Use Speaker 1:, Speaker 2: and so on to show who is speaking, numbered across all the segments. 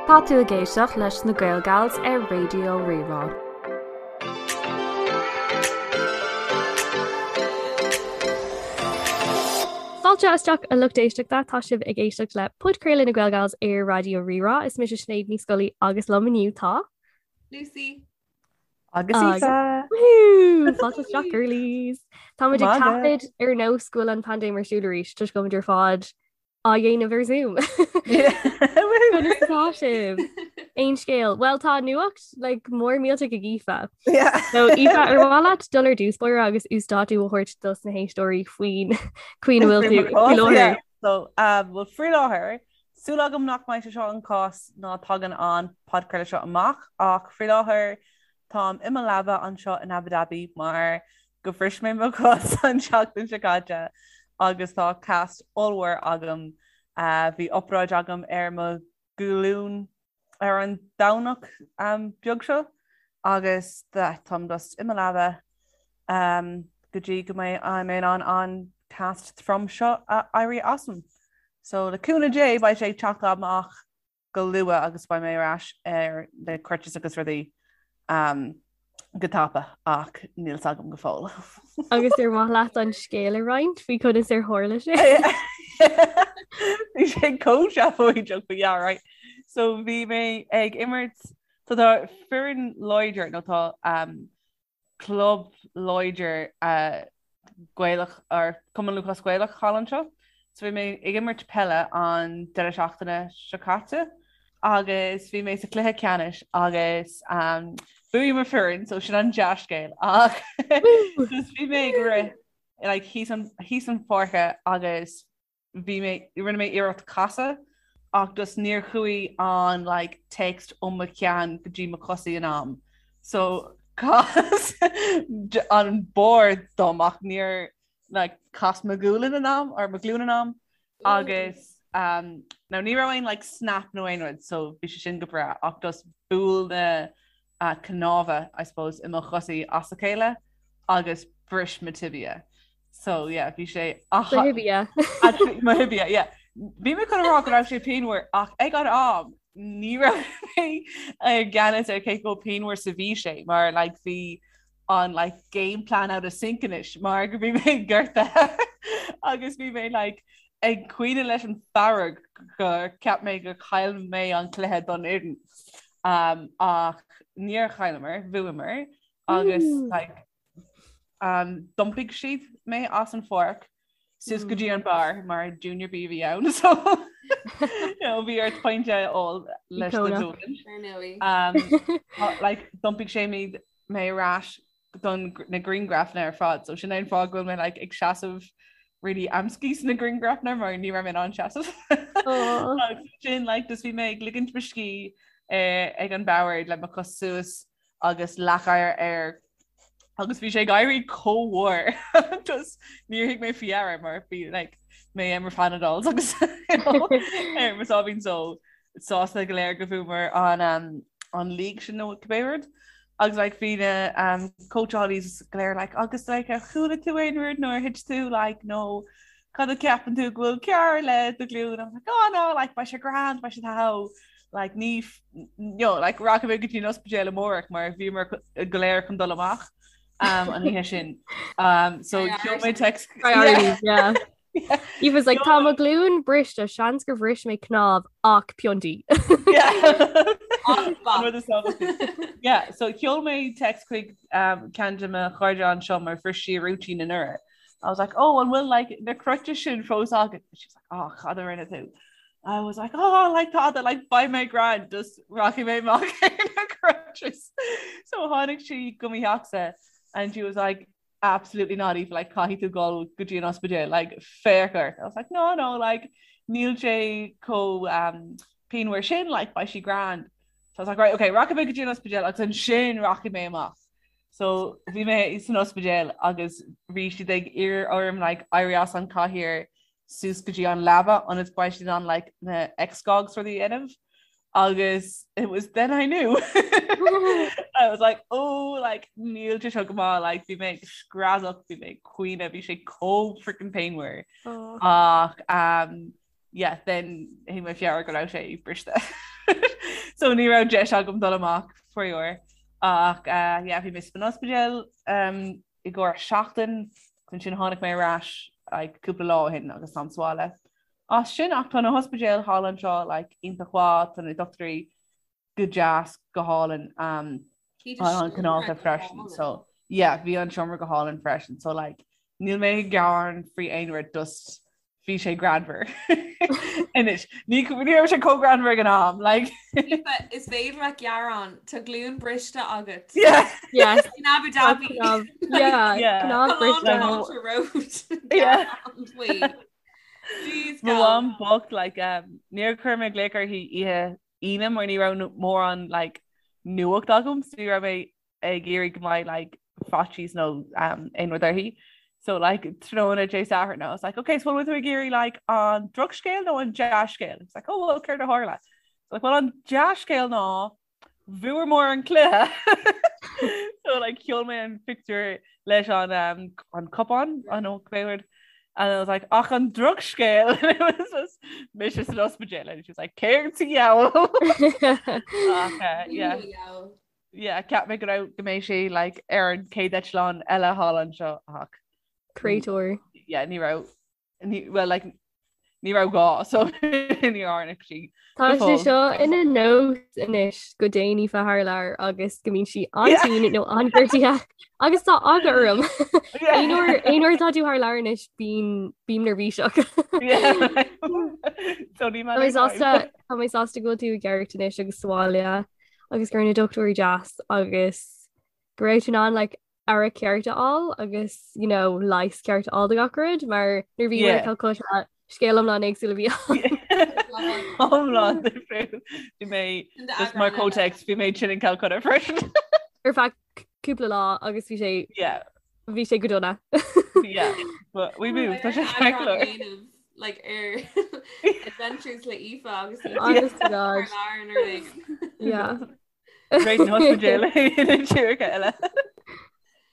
Speaker 1: Tá tú ag éisteacht leis na Gaelgals ar Raidió Rí-Rá.
Speaker 2: Fáilte isteach a lucht éisteachta, tá sibh ag éisteacht le podchraoladh na Gaelgals ar Raidió Rí-Rá. Is mise Sinéad Ní Scolaí agus liom inniu tá.
Speaker 3: Lucy.
Speaker 4: Agus Aoife!
Speaker 2: Woohoo! Fáilte isteach girlies! Táimid ag taifead ar nós go bhfuil an paindéim ar siúl arís toisc go bhfuilimid ar fad á dhéanamh ar Zoom. Conas atá sibh? Aon scéal? Well tá nuacht like, mór millteach ag Aoife.
Speaker 4: Yeah.
Speaker 2: So Aoife ar mhaith leat dul ar dtús báire agus uasdátú a thabhairt dos na héisteoirí faoin chaoi a bhfuil tú faoi láthair.
Speaker 4: So, um, well, faoi láthair, Súil agam nach mbeidh sé seo an cás nuair a thagann an podchraoladh seo amach ach faoi láthair táim i mo leaba anseo in Abu Dhabi mar go bhris mé mo chos an tseachtain seo caite agus tá cast ollmhór agam. Bhí obráid agam ar mo ghlúin ar an Domhnach beag seo agus táim just i mo leaba go dtí go mbeidh mé in ann an cast trom seo a éirí asam. So le cúnamh Dé beidh sé ag teacht amach go luath agus beidh mé ar ais ar na crutches agus rudaí go tapa ach níl 's agam go fóill.
Speaker 2: Agus ar mhaith leat an scéal a roinnt faoi conas ar tharla sé?
Speaker 4: Bhí sé chomh seafóideach but yeah right. So bhí mé ag imirt so tá foireann láidir nó tá um, club láidir uh, Gaelach or Cumann Lúthchleas Gaelach thall anseo. So bhí mé ag imirt peile an deireadh seachtaine seo caite agus bhí mé sa cluiche ceannais agus um, bhuaigh mo foireann so sin an dea-scéal ach just bhí mé ag rith like, thíos an, thíos an pháirce agus bhí mé, rinne mé iarracht casadh ach just níor chuaigh an like text ó mo cheann go dtí mo chosaí in am. So chas an bord dom ach níor like chas mo ghualainn in am or mo ghlúin in am agus um, now ní raibh aon like snap nó aon rud so bhí sé sin go breá ach just bhuail na uh, cnámha I suppose i mo chosaí as a chéile agus bris mo tibia. So yeah, bhí sé
Speaker 2: Do thibia.
Speaker 4: Mo thibia, yeah. Bhí mé chun a rá go raibh sé pianmhar ach ag an am ní raibh mé i gceannas ar cé chomh pianmhar is a bhí sé mar like bhí an like game plan out of sync anois mar go bhí mé gortaithe agus bhí mé like ag caoineadh leis an fearg gur cheap mé gur chaill mé an cluiche don fhoireann. Um, ach níor chailleamar, bhuamar agus like D'iompaigh siad mé as an pháirc suas go dtí an beár mar Junior B a bhí ann so bhí ort pointe a fháil leis na
Speaker 3: Ar
Speaker 4: ndóigh. Like d'iompaigh sé mé mé ar ais don na grianghrafanna ar fad so sin é an fáth go bhfuil mé like ag seasamh really amscaí sna grianghrafanna mar ní raibh mé in ann seasamh. Agus sin like just bhí mé ag ligint mo scíth eh, ag an bord le mo chos suas agus leathchathaoir air agus bhí sé ag éirí chomh mór just níor thug mé faoi deara mar bhí like mé ar mo Panadols agus ar mo sáimhín só sásta go léir go bhfuamar an um, an league sin nó cibé rud agus like bhí na um, cóitseálaí go léir like agus like ar chuala tú aon rud nó ar thit tú like nó cad a ceapann tú go bhfuil cearr le do ghlúin I'm like oh no like beidh sé grand beidh sé tá like ní you know, like rachaidh mé go dtí an ospidéal amárach mar bhíomar go léir chun dul amach um, an oíche sin. Um, so sheol mé text
Speaker 2: Priorities, yeah. He was like tá mo ghlúin briste seans gur bhris mé cnámh ach piontaí.
Speaker 4: Yeah, so sheol mé text chuig um, ceann de mo chairde anseo mar bhris sí a rúitín anuraidh. I was like, oh, an bhfuil like na crutches sin fós agat? She was like, oh, cad a rinne tú? I was like, oh, like tada, like beidh mé grand, just rachaidh mé amach ar na crutches. So tháinig sí go mo theachsa and she was like, absolutely not, Aoife, like caithfidh tú dul go dtí an ospidéal, like féach ort. I was like, no, no, like níl sé chomh um, pianmhar sin, like beidh sé grand. So I was like, right, okay, rachaidh mé go dtí an ospidéal agus ansin rachaidh mé amach. So bhí mé san ospidéal agus bhí siad ag iarraidh orm like éirí as an cathaoir suas go dtí an leaba ionas go mbeidh siad in ann like na x-gogs rudaí a dhéanamh agus it was then I knew. I was like oh like níl sé seo go maith like bhí mé ag screadach bhí mé ag caoineadh bhí sé chomh freaking pianmhar
Speaker 2: Oh.
Speaker 4: ach um, yeah then thug mé faoi deara go raibh sé briste. So ní raibh deis agam dul amach faraor. Ach uh, yeah, bhí mé san ospidéal um, i gcomhair seachtain, ansin tháinig mé ar ais like, cúpla lá ó shin agus táim sa bhaile. As sin ach tá na hospidéil thall anseo like, iontach mhaith, tá na dochtúirí go deas go hálainn um, an cineálta freisin. So yeah, bhí an seomra go hálainn freisin. So like, níl mé ag gearán faoi aon rud just bhí sé greannmhar. Anois ní ní raibh sé chomh greannmhar ag an am like.
Speaker 3: Is féidir leat gearán tá glúin briste agat.
Speaker 4: Yeah.
Speaker 2: Yes.
Speaker 3: In Abu Dhabi.
Speaker 2: Yeah.
Speaker 4: Yeah.
Speaker 2: Cnámh briste.
Speaker 3: Road.
Speaker 4: Yeah.
Speaker 3: Jeez,
Speaker 4: Mo
Speaker 3: gal.
Speaker 4: mham bocht like um, níor chuir mé glaoch uirthi oíche Aoine mar ní raibh mórán like nuacht agam so ní raibh mé ag iarraidh go mbeidh like faitíos nó um, aon rud uirthi. So like tráthnóna Dé Sathairn I was like okay so bhfuil tú ag iarraidh like an drochscéal nó an dea-scéal? It's like oh well céard a tharla? So like well an dea-scéal ná bhuamar an cluiche. So like sheol mé an pictiúr leis an um, an cupán an ó cbéward and I was like ach an drochscéal and it was just mise san ospidéal and she was like céard sa diabhal Ach, uh, yeah. Yeah, cheap mé go raibh go mbeidh sé like ar an chéad eitleán eile thall anseo ach
Speaker 2: Créatúr.
Speaker 4: yeah, ní raibh ní well like ní raibh gá so ní tháinig sí
Speaker 2: Tá
Speaker 4: go
Speaker 2: sé
Speaker 4: fóill.
Speaker 2: seo ina nós anois go dtéann Aoife thar lear agus go mbíonn sí an-tinn nó an-ghortaithe agus tá eagla orm.
Speaker 4: Yeah.
Speaker 2: Aon uair aon uair atá tú thar lear anois bím bím neirbhíseach.
Speaker 4: Yeah. So ní
Speaker 2: Tá mé
Speaker 4: matter time.
Speaker 2: sásta tá mé sásta go bhfuil tú i gceart anois agus sa bhaile agus go raibh na dochtúirí deas agus go raibh tú in ann like aire ceart a fháil agus you know leigheas ceart a fháil do gach rud mar nuair a bhí
Speaker 4: Yeah.
Speaker 2: i Calcutta scéal iomlán éagsúil a bhí ann.
Speaker 4: Iomlán difriúil. Bhí mé just mar context bhí mé tinn in Calcutta freisin.
Speaker 2: Ar feadh cúpla lá agus bhí sé
Speaker 4: Yeah.
Speaker 2: bhí sé go dona.
Speaker 4: Yeah. But we moved. Tá sé ceart go leor.
Speaker 3: like ar adventures le Aoife agus
Speaker 2: Honest to God. Yeah.
Speaker 4: Great an ospidéal in tíortha eile.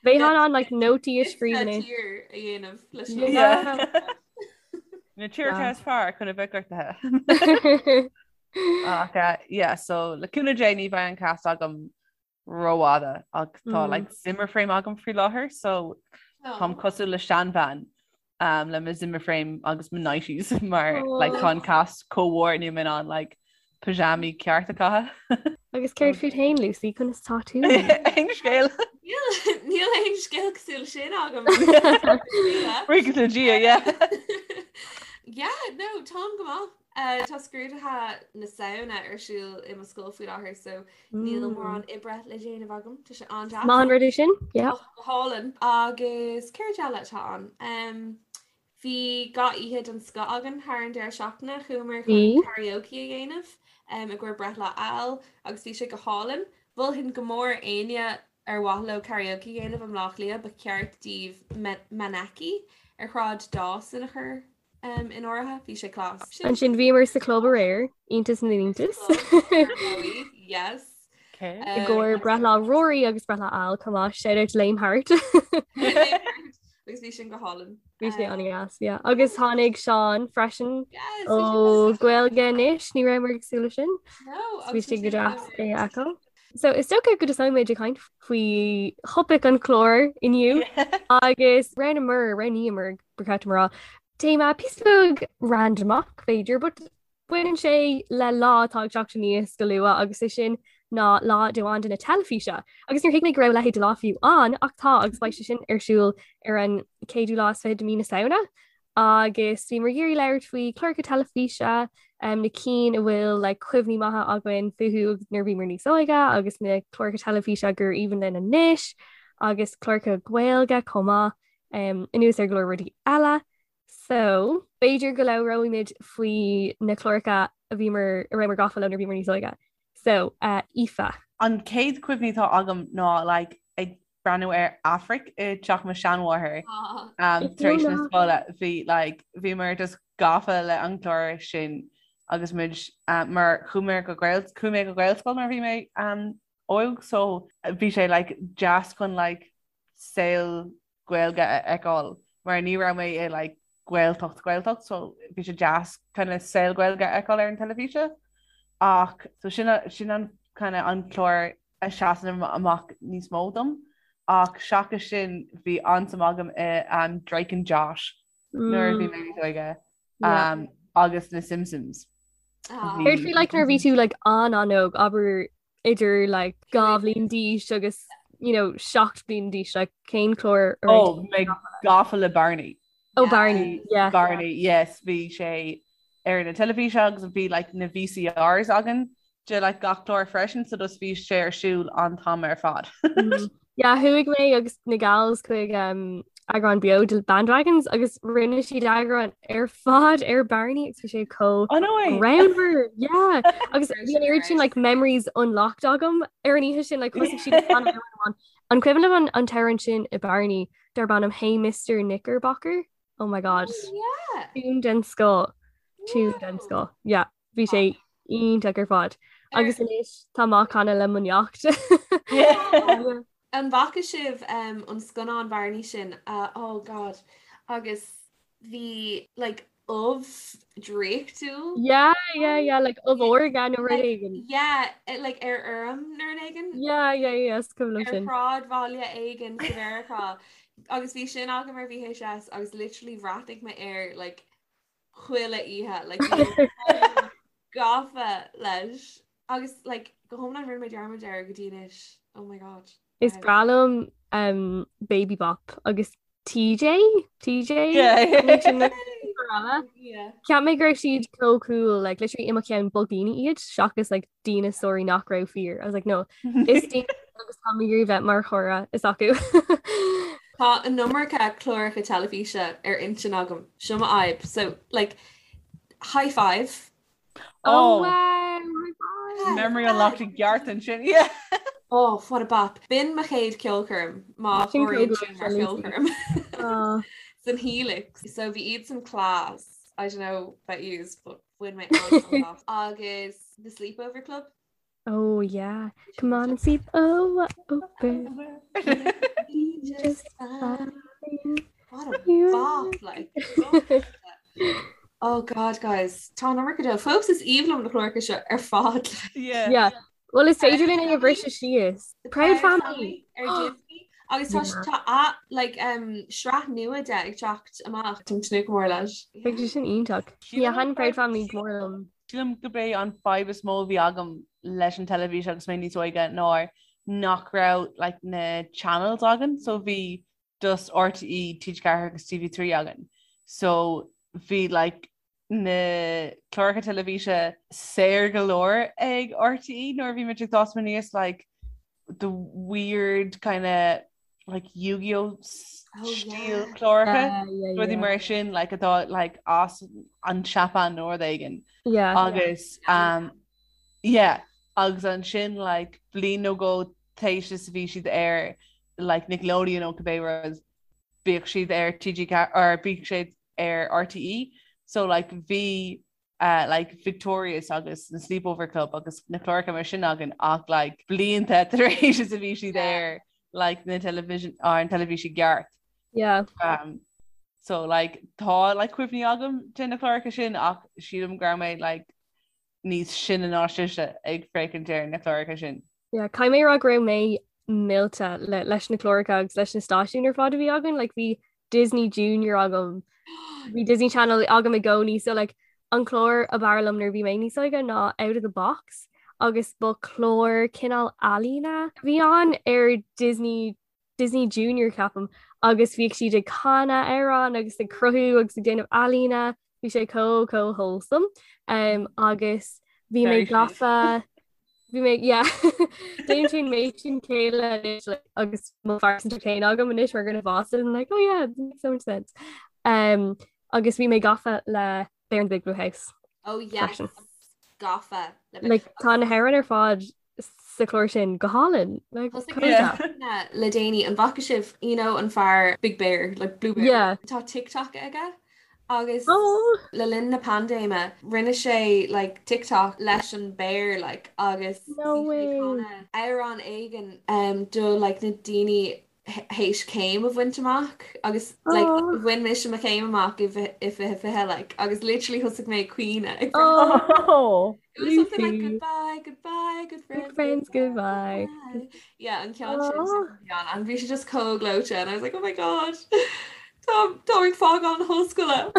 Speaker 2: Bheith an like nótaí a scríobh anois.
Speaker 3: tír a dhéanamh leis
Speaker 4: Yeah. Na tíortha is fearr chun a bheith gortaithe. Ach uh, yeah, so le cúnamh Dé ní bheidh an cast agam rófhada ach tá mm. like Zimmer frame agam faoi láthair so táim cosúil le seanbhean um, le mo Zimmer frame agus mo nighties mar oh. like tá an cast chomh mór níl mé in ann like pajamaí ceart a chaitheamh.
Speaker 2: Agus céard fút féin Lucy conas tá tú?
Speaker 4: Aon scéal.
Speaker 3: Níl aon scéal cosúil sin agam.
Speaker 4: Buíochas le Dia, yeah.
Speaker 3: Yeah, no, táim go maith. Uh, tá scrúduithe na Samhna ar siúl i mo scoil faoi láthair so níl mm. mórán oibre le déanamh agam Tá sé an-deas.
Speaker 2: Maith an rud é sin? Yeah.
Speaker 3: Go hálainn agus céard eile atá ann. Um, bhí gach oíche den scoth againn thar an deireadh seachtaine chuamar chun karaoke a dhéanamh um, i gcomhair breithlá Al agus bhí sé go hálainn. Mholfainn go mór éinne ar mhaith leo karaoke a dhéanamh i mBleá Cliath ba cheart daoibh Manaki ar Shráid Dawson a chur um, in áirithe, bhí sé class.
Speaker 2: Ansin bhíomar sa club aréir, iontas na n-iontas.
Speaker 3: Yes.
Speaker 4: Okay.
Speaker 2: I gcomhair breithlá Rory agus breithlá Al chomh maith, shout out to Lame Heart.
Speaker 3: Agus bhí sin go hálainn.
Speaker 2: Bhí sé an-deas, yeah. Agus tháinig Seán freisin
Speaker 3: Yes,
Speaker 2: ó Gaeilge Anois, ní rabhamar ag súil leis sin.
Speaker 3: No,
Speaker 2: Bhí sé go deas é a fheiceáil. So is dócha go dtosóidh muid ag caint faoi thopaic an chláir inniu agus roghnaíomar, roghnaíomar ba cheart dom a rá. Téama píosa beag randamach b'fhéidir, but baineann sé le lá atá ag teacht aníos go luath agus é sin ná Lá Domhanda na Teilifíse. Agus níor thuig mé go raibh a leithéid de lá fiú ann ach tá agus beidh sé sin ar siúl ar an céadú lá is fiche de mí na Samhna. Agus bhíomar ag iarraidh labhairt faoi chláracha teilifíse, um, na cinn a bhfuil like, cuimhní maithe againn fúthu nuair a bhíomar níos óige agus na cláracha teilifíse gur aoibhinn linn anois agus cláracha Gaeilge chomh maith. um, anuas ar go leor rudaí eile. So, b'fhéidir go labhróimid faoi na cláracha a bhíomar a rabhamar gafa leo nuair a bhíomar níos óige. So, uh, Aoife.
Speaker 4: An chéad chuimhní atá agam ná like, ag breathnú ar Aifric i teach mo seanmháthair um, tar éis na scoile bhí like, bhíomar just gafa le an clár sin agus muid uh, mar chuaigh mé go Gael chuaigh mé go Gaelscoil nuair a bhí mé um, óg so bhí sé like, deas chun like, saol Gaeilge a fheiceáil mar ní raibh mé i like Gaeltacht Gaeltacht so bhí sé deas kind of saol Gaeilge a fheiceáil ar an teilifíse. Ach so sin sin an kind of an clár a seasann amach níos mó dom. Ach seachas sin bhí an-suim agam i um, Drake and Josh nuair a bhí mé níos óige um, agus na Simpsons.
Speaker 2: Ah. Céard faoi like nuair a bhí tú like an-an-óg abair idir like 2 bhliain d'aois agus you know 7 bliain d'aois like cén clár
Speaker 4: a raibh Oh, mé gafa le Barney.
Speaker 2: Oh Barney, yeah.
Speaker 4: Barney, yes, bhí sé ar na teilifíse agus bhí like na VCRs againn de like gach clár freisin so just bhí sé ar siúl an t-am ar fad.
Speaker 2: Yeah, chuaigh mé agus na gals chuig um, eagrán beo de Bandwagons agus rinne siad eagrán ar fad ar Barney agus bhí sé chomh
Speaker 4: Oh no way!
Speaker 2: greannmhar, yeah. Agus bhí an oiread sin like memories unlocked agam ar an oíche sin like thosaigh siad ag canadh amhrán amháin. An cuimhin libh an an t-amhrán sin i Barney darb ainm Hey Mr Knickerbocker? Oh my god.
Speaker 3: Oh, yeah.
Speaker 2: Tune den scoth. Tune den scoth. Yeah, bhí sé iontach ar fad. Agus anois tá mé á chanadh le mo neacht.
Speaker 4: Yeah.
Speaker 3: An bhfaca sibh um, an scannán Barney sin? Uh, oh god. Agus bhí like ubh draíochtúil.
Speaker 2: Yeah, yeah, yeah, like ubh órga nó rud éigin.
Speaker 3: Yeah, eh, like ar fheirm nó rud éigin.
Speaker 2: Yeah, yeah, yeah, is cuimhin liom
Speaker 3: Ar
Speaker 2: sin.
Speaker 3: shráidbhaile éigin sa Mheiriceá. Agus bhí sin agam ar VHS agus literally bhreathnaigh mé air like chuile oíche like bhí mé chomh gafa leis. Agus like go hiomlán rinne mé dearmad air go dtí anois. Oh my god.
Speaker 2: Is breá liom um, Baby Bop agus TJ? TJ?
Speaker 3: Yeah.
Speaker 2: Cheap mé go raibh siad chomh cool, like literally i mo cheann ba dhaoine iad seachas like díneasóirí nach raibh fíor. I was like no, is daoine agus tá mé ag iarraidh bheith mar chara s'acu.
Speaker 3: Tá an iomarca cláracha teilifíse ar intinn agam. Seo mo fhadhb. So like high five.
Speaker 2: Oh, wow, high five.
Speaker 4: Memory unlocked i gceart ansin. Yeah.
Speaker 3: Oh, what a bop. B'in mo chéad ceolchoirm má
Speaker 2: Sin
Speaker 3: chomhairíonn
Speaker 2: cód
Speaker 3: sin mar
Speaker 2: Lucy.
Speaker 3: cheolchoirm.
Speaker 2: Oh.
Speaker 3: San Helix. So bhí iad san class. I don't know about yous, but bhain mé an-sult as. Agus The Sleepover Club.
Speaker 2: Oh yeah. Come on and sleep oh, over.
Speaker 3: Just fine. What a
Speaker 2: You-
Speaker 3: bop, like. Oh God, guys, tá an iomarca de. Fós is aoibhinn liom na cláracha seo ar fad. like.
Speaker 4: Yeah.
Speaker 2: Yeah. Well, is féidir linn é a bhriseadh síos. The Proud Family.
Speaker 3: ar Disney. Agus tá
Speaker 2: Yeah.
Speaker 3: tá a like um, sraith nua de ag teacht amach. Táim ag tnúth go mór leis.
Speaker 2: Beidh sé sin iontach. Yeah, thaitin Proud Family go mór liom.
Speaker 4: Sílim gurb é an fadhb is mó a bhí agam leis an teilifís agus mé níos óige ná nach raibh like, na channels againn, so bhí just RTÉ, TG4 agus TV3 againn. So bhí like, na cláracha teilifíse saor go leor ag RTÉ nuair a bhí muid ag fás aníos like, the weird kind of like Yu-Gi-Oh
Speaker 3: Oh,
Speaker 4: stíl
Speaker 3: yeah.
Speaker 4: cláracha.
Speaker 2: Yeah, yeah,
Speaker 4: Rudaí
Speaker 2: yeah.
Speaker 4: mar sin like atá like as an Seapáin nó rud éigin.
Speaker 2: Yeah.
Speaker 4: Agus um, yeah, agus ansin like bliain nó dhó tar éis is a bhí siad ar like Nickelodeon nó cibé rud bhíodh siad ar TG or bhíodh siad ar RTÉ so like bhí uh, like Victorious agus na Sleepover Club agus na cláracha mar sin againn ach like blianta tar éis is a bhí siad ar like na television ar an teilifís i gceart.
Speaker 2: Yeah.
Speaker 4: Um, so like tá like cuimhní agam de na cláracha sin ach sílim go raibh mé like níos sine ná sibhse ag féachaint ar na cláracha sin.
Speaker 2: Yeah, caithfidh mé a rá go raibh mé millte le, leis na cláracha agus leis na stáisiúin ar fad a bhí againn, like bhí Disney Junior agam, bhí Disney Channel agam i gcónaí, so like an clár ab fhearr liom nuair a bhí mé níos óige ná Out of the Box agus ba chlár cineál ealaíne a bhí ann ar Disney Disney Junior ceapaim agus bhíodh siad ag canadh amhrán agus ag cruthú agus ag déanamh ealaíne, bhí sé chomh chomh wholesome um, agus bhí mé
Speaker 4: Very sweet.
Speaker 2: gafa bhí mé yeah Déanann mé sin céile anois like, agus mo phearsantacht féin agam anois mar dhuine fásta I'm like oh yeah it makes so much sense um, agus bhí mé gafa le Bear in the Big Blue House
Speaker 3: Oh yes.
Speaker 2: Freisin.
Speaker 3: Gafa. Le
Speaker 2: like tá na hamhráin ar fad sa chlár sin go hálainn like,
Speaker 3: Thosaigh
Speaker 2: chomh
Speaker 3: mé
Speaker 4: Yeah.
Speaker 2: deas.
Speaker 3: na- le déanaí an bhfaca sibh you know, an fear Big Bear like Blue Bear.
Speaker 2: Yeah.
Speaker 3: Tá TikTok aige agus
Speaker 2: Oh.
Speaker 3: le linn na paindéime rinne sé like TikTok leis an bear like agus
Speaker 2: No
Speaker 3: bhí sé ag
Speaker 2: way.
Speaker 3: canadh amhrán éigin um, do like na daoine théis céim a bhaint amach agus like bhain mise mo chéim amach i 2020 like agus literally thosaigh mé ag caoineadh ag
Speaker 4: Oh
Speaker 3: It was something like goodbye, goodbye, good friends,
Speaker 2: good friends, goodbye.
Speaker 3: goodbye. Yeah, an ceann sin and bhí sé just chomh gleoite and I was like, oh my god, tá tá ag fágáil na hollscoile.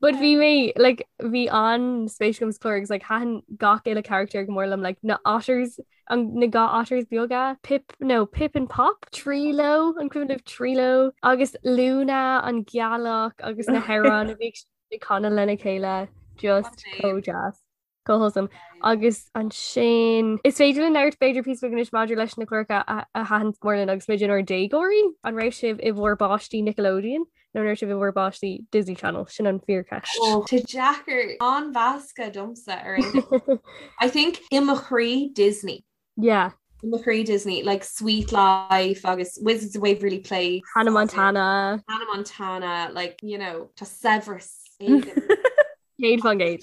Speaker 2: But bhí mé like bhí an-spéis agam sa chlár agus like thaitin gach uile character go mór liom like na otters an na ga otters beaga Pip no Pip and Pop Treelo an cuimhin libh Treelo agus Luna an gealach agus na hamhráin a bhí ag canadh lena chéile just chomh deas. Chomh wholesome. Agus ansin is féidir linn labhairt b'fhéidir píosa beag anois maidir leis na cláracha a thaitin go mór linn agus muid inár déagóirí. An raibh sibh i bhur bpáistí Nickelodeon nó an raibh sibh i bhur bpáistí Disney Channel? Sin an fíorcheist.
Speaker 3: Oh, tá deacair an-mheasctha domsa ar aon I think i mo chroí Disney.
Speaker 2: Yeah.
Speaker 3: I mo chroí Disney, like Suite Life agus Wizards of Waverly Place.
Speaker 2: Hannah Montana.
Speaker 3: Hannah Montana, like, you know, tá saibhreas éigin.
Speaker 2: 100%.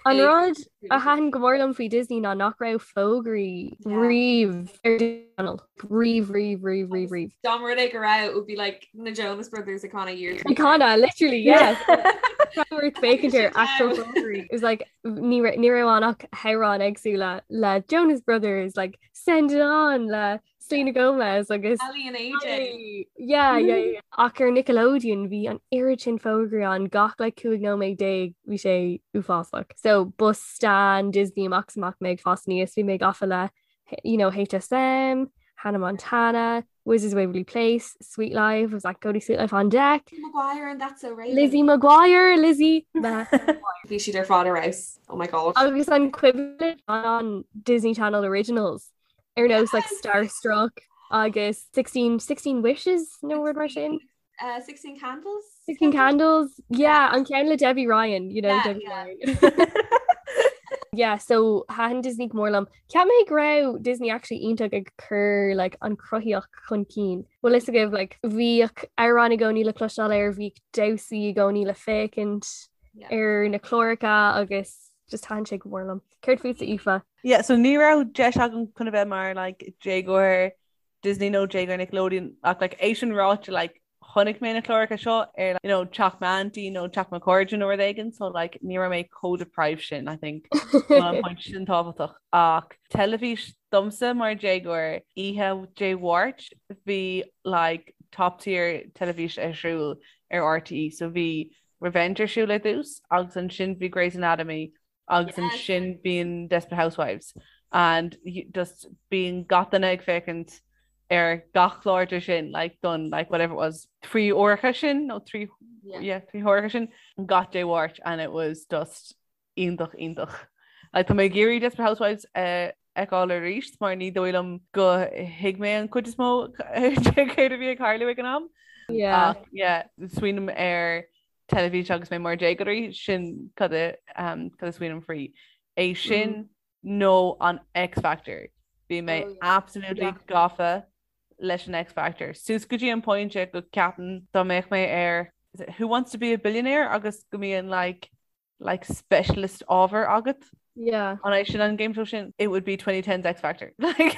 Speaker 2: An rud a thaitin go mór liom faoi Disney ná nach raibh fógraí riamh ar Disney Channel. Riamh, riamh, riamh, riamh, riamh.
Speaker 3: Dá mba rud é go raibh, it would be like na Jonas Brothers ag canadh Year
Speaker 2: Ag canadh, literally, yes. Ag féachaint ar actual fógraí. It was like ní raibh ann ach hamhráin éagsúla le Jonas Brothers, like Send It On le Selena Gomez agus
Speaker 3: Aly and AJ.
Speaker 2: Yeah, yeah, yeah. Ach ar Nickelodeon bhí an oiread sin fógraí ann gach like 15 nóiméad bhí sé uafásach. So ba stan Disney amach is amach mé ag fás aníos, bhí mé gafa le you know, HSM, Hannah Montana, Wizards of Waverly Place, Suite Life, was like go to Suite Life on deck.
Speaker 3: Lizzie McGuire and That's So Raven.
Speaker 2: Lizzie McGuire, Lizzie
Speaker 3: Bhí siad ar fad ar fheabhas. Oh my god.
Speaker 2: Agus an cuimhin an Disney Channel Originals ar nós like Starstruck agus 16 16 Wishes nó rud mar sin.
Speaker 3: Uh, 16 Candles?
Speaker 2: 16 Candles? Yeah, an ceann le Debbie Ryan, you know, yeah, Debbie yeah. Ryan. yeah, so thaitin Disney go mór liom. Cheap mé go raibh Disney actually iontach ag cur like, an chruthaíocht chun cinn. Bhfuil fhios agaibh like, bhíodh amhráin i gcónaí le cloisteáil air, bhíodh damhsaí i gcónaí le féachaint yeah. ar na cláracha agus just thaitin sé go mór liom. Céard fútsa Aoife?
Speaker 4: Yeah, so ní raibh deis agam chun a bheith mar like, déagóir Disney nó déagóir Nickelodeon ach like, é sin ráite like, chonaic mé na cláracha seo ar you know, teach m'auntie nó teach mo chairde nó rud éigin so like, ní raibh mé chomh deprived sin I think an point sin tábhachtach ach teilifís domsa mar déagóir oíche Dé Mháirt bhí like, top tier teilifís ar siúl ar RTÉ so bhí Revenge ar siúl ar dtús agus ansin bhí Grey's Anatomy agus ansin bíonn Desperate Housewives and just bíonn gach duine ag féachaint ar gach clár de sin like don like whatever it was 3 uaireacha sin nó 3 yeah 3 huaireacha sin gach Dé Mháirt and it was just iontach iontach. Like tá mé ag iarraidh Desperate Housewives a fheiceáil arís mar ní dóigh liom go thuig mé an cuid is mó de céard a bhí ag tarlú ag an am.
Speaker 2: Yeah.
Speaker 4: Ach yeah smaoiním ar teilifís agus mé mar déagóirí, sin cad a cad a smaoiním faoi. É sin nó an X Factor. Bhí mé oh, absolutely yeah. gafa leis an X Factor. Suas go dtí an pointe go ceapaim dá mbeadh mé ar Who Wants to be a Billionaire agus go mbíonn like like specialist ábhar agat.
Speaker 2: Yeah.
Speaker 4: An é sin an game show sin? It would be 2010's X Factor.
Speaker 2: An é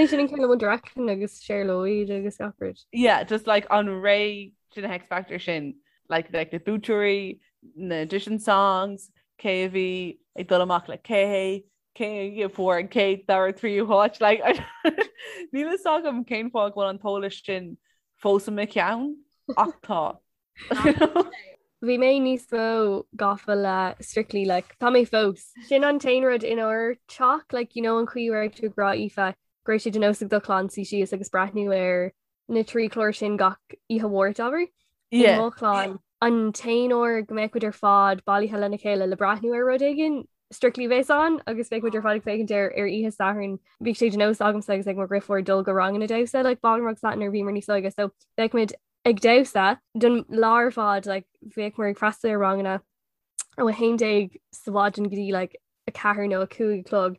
Speaker 2: sin an ceann le One Direction agus Cher Lloyd agus gach rud.
Speaker 4: Yeah, just like an ré sin X Factor sin like like na buaiteoirí, na audition songs, cé a bhí ag dul amach le cé, cé a fuair an chéad dara tríú háit like níl a fhios agam cén fáth go bhfuil an t-eolas sin fós i mo cheann ach tá.
Speaker 2: Bhí mé níos mó gafa le Strictly like tá mé fós. Sin an t-aon rud inár teach like you know an chaoi a raibh tú ag rá Aoife go raibh sé de nós ag do chlann suí síos agus breathnú ar na trí chlár sin gach oíche Mháirt abair. I mo chlann an t-aon uair go mbeadh muid ar fad bailithe lena chéile le breathnú ar rud éigin Strictly a bheas ann agus bheadh muid ar fad ag féachaint air ar oíche Sathairn. Bhíodh sé de nós agamsa agus ag mo dheirfiúr dul go ranganna damhsa like ballroom agus that nuair a bhíomar níos óige so bheadh muid ag damhsa don lá ar fad like bhíomar ag freastal ar ranganna ó 11 sa mhaidin go dtí like 4 nó 5 a chlog.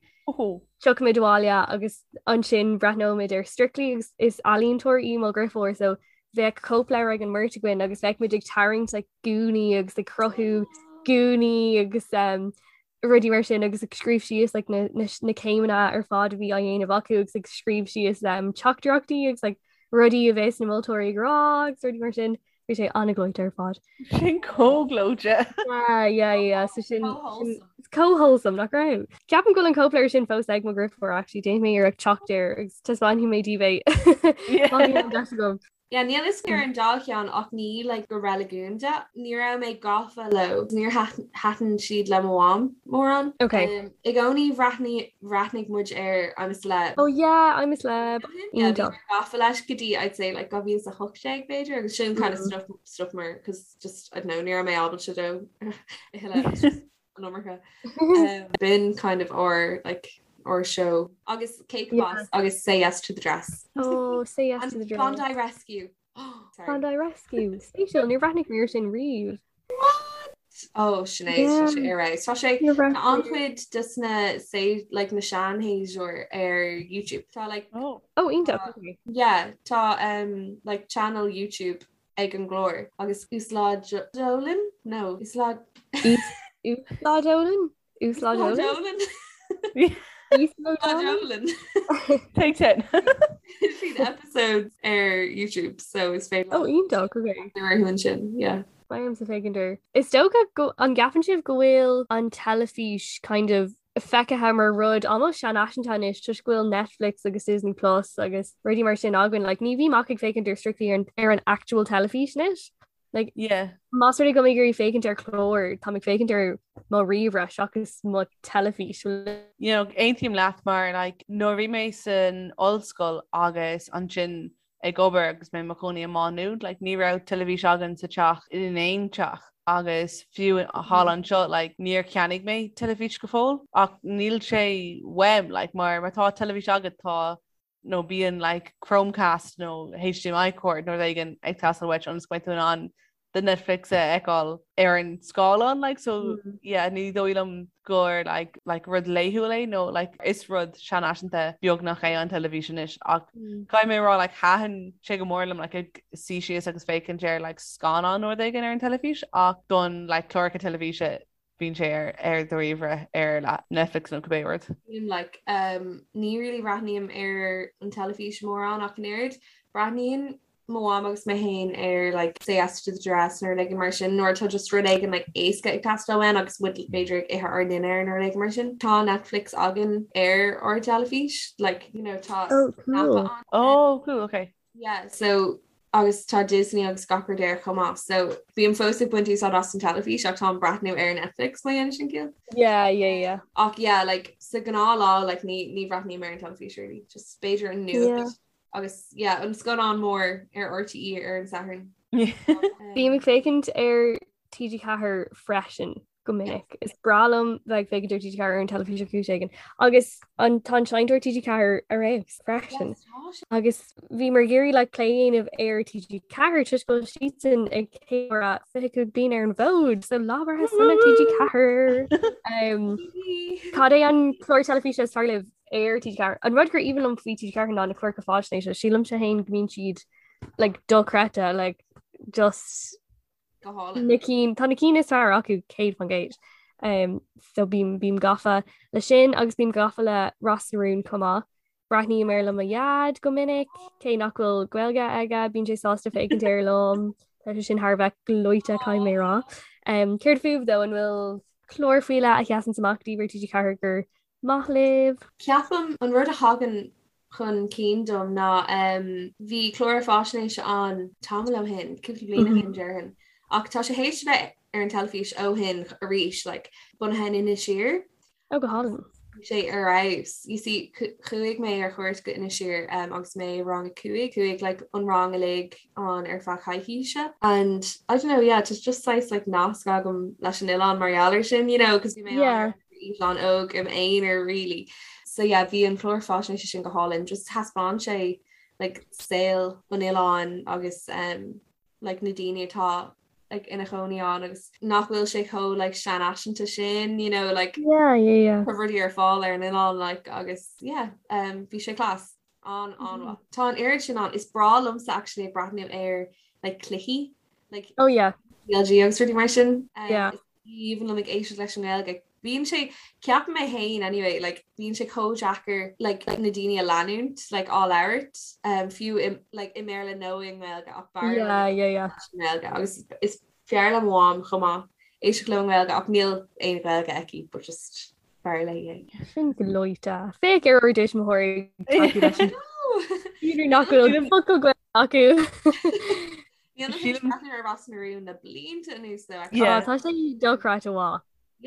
Speaker 2: Tiocfaimid abhaile agus ansin breathnóimid ar Strictly agus is ealaíontóir í mo dheirfiúr so bheadh cóipleabhar ag an mbeirt againn agus bheadh muid ag tarraingt like gúnaí agus ag cruthú gúnaí agus um, rudaí mar sin agus ag scríobh síos like, na, na, na céimeanna ar fad a bhí á dhéanamh acu agus ag scríobh síos um, teachtaireachtaí agus like, rudaí a bheas na moltóirí ag rá agus rudaí mar sin. Bhí sé an-ghleoite ar fad.
Speaker 4: Sin chomh gleoite.
Speaker 2: Yeah, yeah, yeah. So sin chomh wholesome nach raibh. Ceapaim go bhfuil an cóipleabhar sin fós ag mo dheirfiúr actually déanfaidh mé iarracht teacht air agus taispeánfaidh mé daoibh é. Má bhíonn an deis agam.
Speaker 3: Yeah, níl fhios ar an dá cheann ach ní like go reiligiúnda. Ní raibh mé gafa leo. Níor thaitin siad le mo mham mórán.
Speaker 2: Okay.
Speaker 3: Um, I gcónaí bhreathnaigh bhreathnaigh muid ar I'm a Celeb.
Speaker 2: Oh yeah, I'm a Celeb.
Speaker 3: Yeah, bhí mé gafa leis go dtí I'd say like 2018 b'fhéidir agus sin kind of mm. stop stop mar cause just I don't know ní raibh mé ábalta dó a thuilleadh. an iomarca. Um, b'in kind of our like our show agus Cake yeah. Boss agus Say Yes to the Dress.
Speaker 2: Oh, Say Yes to the Dress.
Speaker 3: Bondi Rescue.
Speaker 2: Oh, Bondi Rescue. Spéisiúil níor bhreathnaigh mé air sin riamh.
Speaker 3: What? Oh Sinéad yeah. sé ar Tá sé an-chuid des na say like na seanshéasúir ar YouTube. Tá like
Speaker 2: oh, oh iontach.
Speaker 3: Yeah, tá um, like channel YouTube ag an gclár agus uaslódálann? No, uaslód
Speaker 2: Uaslódálann? Uaslódálann?
Speaker 3: Uaslódálann.
Speaker 4: Take 10.
Speaker 3: Siad episodes ar YouTube so is féidir
Speaker 2: Oh iontach, okay.
Speaker 3: Ar ansin, yeah.
Speaker 2: Beidh ormsa féachaint air. Is dócha go an gceapann sibh go bhfuil an teilifís kind of feicthe mar rud almost seanfhaiseanta anois toisc go bhfuil Netflix agus Disney Plus agus rudaí mar sin againn. Like, ní bhím ach ag féachaint ar strictly ar an, ar an actual teilifís anois. Like,
Speaker 4: yeah.
Speaker 2: Más rud é go bhfuil mé ag iarraidh féachaint ar chlár, tá mé ag féachaint ar mo ríomhaire seachas mo teilifís.
Speaker 4: You know, aontaím leat mar like, nuair a bhí mé san ollscoil agus ansin ag obair agus mé i mo chónaí i Má Nuad, like, ní raibh teilifís againn sa teach in aon teach agus fiú thall anseo like, níor cheannaigh mé teilifís go fóill ach níl sé uaim like, mar má tá teilifís agat tá nó bíonn like, Chromecast nó HDMI cord nó rud éigin ag teastáil uait ionas go mbeidh tú in ann do Netflix a fheiceáil ar an scáileán like so mm. yeah ní dóigh liom gur like like rud laethúil é nó like is rud seanfhaiseanta beagnach é an teilifís anois ach mm. caithfidh mé rá like thaitin sé go mór liom like ag suí síos agus féachaint ar like scannán nó rud éigin ar an teilifís ach don like cláracha teilifíse bíonn sé ar ar do ríomhaire ar like Netflix nó cibé
Speaker 3: rud. Like um, ní really breathnaím ar an teilifís mórán ach an oiread. Breathnaíonn mo mham agus mé féin ar like Say Yes to the Dress nó rud éigin mar sin nuair atá just rud éigin like éasca ag teastáil uainn agus muid b'fhéidir ag ithe ár ndinnéar nó rud éigin mar sin. Tá Netflix againn ar ár dteilifís like you know tá
Speaker 2: oh, cool.
Speaker 3: ann.
Speaker 4: Oh, cool, okay.
Speaker 3: Yeah, so agus tá Disney agus gach rud air chomh maith, so bím fós ag baint úsáid as an teilifís ach táim ag breathnú ar Netflix má dhéanann sin ciall.
Speaker 2: Yeah, yeah, yeah.
Speaker 3: Ach yeah, like sa ghnáthlá like ní ní bhreathnaím ar an teilifís really, just b'fhéidir an nuacht yeah. agus yeah, an scannán mór ar RTÉ ar an Satharn.
Speaker 2: Bím ag féachaint ar TG4 freisin. go minic. Is breá liom bheith ag féachaint ar TG4 ar an teilifís ar chúis éigin. Agus an tá an seinnteoir TG4 ar fheabhas freisin. Agus bhíomar ag iarraidh like, plé a dhéanamh ar TG4 toisc go bhfuil siadsan ag ceiliúradh 25 bliain ar an bhfód, so lá breithe sona TG4. Um, cad é an clár teilifíse is fearr libh ar TG4? An rud gur aoibhinn liom faoi TG4 ná na cláracha faisnéise, sílimse féin go mbíonn siad like, dochreidte, like, just
Speaker 3: Go hálainn.
Speaker 2: Na cinn, tá na cinn is fearr acu 100%. Um, so bím, bím gafa le sin agus bím gafa le Ros na Rún chomh maith. Breathnaím air le mo dhaid go minic, cé nach bhfuil Gaeilge aige, bíonn sé sásta féachaint air liom. Tá sé sin thar a bheith gleoite caithfidh mé a rá. Um, céard fúibh though an bhfuil clár faoi leith a sheasann amach daoibh ar TG4 gur maith libh?
Speaker 3: Ceapaim an rud a thagann chun cinn dom ná bhí clár faisnéise ann tamall ó shin, cúpla bliain ó shin déarfainn, ach tá sé théis a bheith ar an teilifís ó shin arís, like, bunaithe in Inis Oírr.
Speaker 2: Oh, go hálainn.
Speaker 3: Bhí sé ar fheabhas. You see, chuaigh mé ar chuairt go Inis Oírr um, agus mé i rang a 5, chuaigh like, an rang uilig ann ar feadh coicíse. And I don't know, yeah, just just saghas like nasc agam leis an oileán mar gheall air sin, you know, because bhí mé
Speaker 2: yeah.
Speaker 3: eitleán óg im aonar really. So yeah, bhí an clár faisnéise sin go hálainn, just thaispeáin sé like saol an oileáin agus um, like na daoine atá like ina chónaí ann agus nach bhfuil sé chomh like seanfhaiseanta sin, you know, like
Speaker 2: yeah, yeah, yeah.
Speaker 3: tá rudaí ar fáil ar an oileán like agus yeah, um, bhí sé class. An an-mhaith. Tá an oiread sin ann. Is breá liomsa actually ag breathnú ar like cluichí like
Speaker 2: Oh yeah.
Speaker 3: CLG agus rudaí mar sin.
Speaker 2: Yeah.
Speaker 3: Is aoibhinn liom ag éisteacht leis an nGaeilge. Bíonn sé, ceapaim mé féin anyway, like bíonn sé chomh deacair like na daoine a leanúint like á labhairt um, fiú i, like i mBéarla nó i nGaeilge ach b'fhearr liom
Speaker 2: Yeah, yeah, yeah.
Speaker 3: i nGaeilge agus is fearr le mo mham chomh maith éisteacht liom i nGaeilge ach níl aon Ghaeilge aici but just b'fhearr léi
Speaker 2: é. Sin gleoite. Féach ar ár dtuismitheoirí ag tacú leis an B'fhéidir nach bhfuil focal Gaeilge acu.
Speaker 3: Níl mé tar éis breathnú ar Ros na Rún le blianta anuas though.
Speaker 2: Yeah. Tá sé dochreidte mhaith.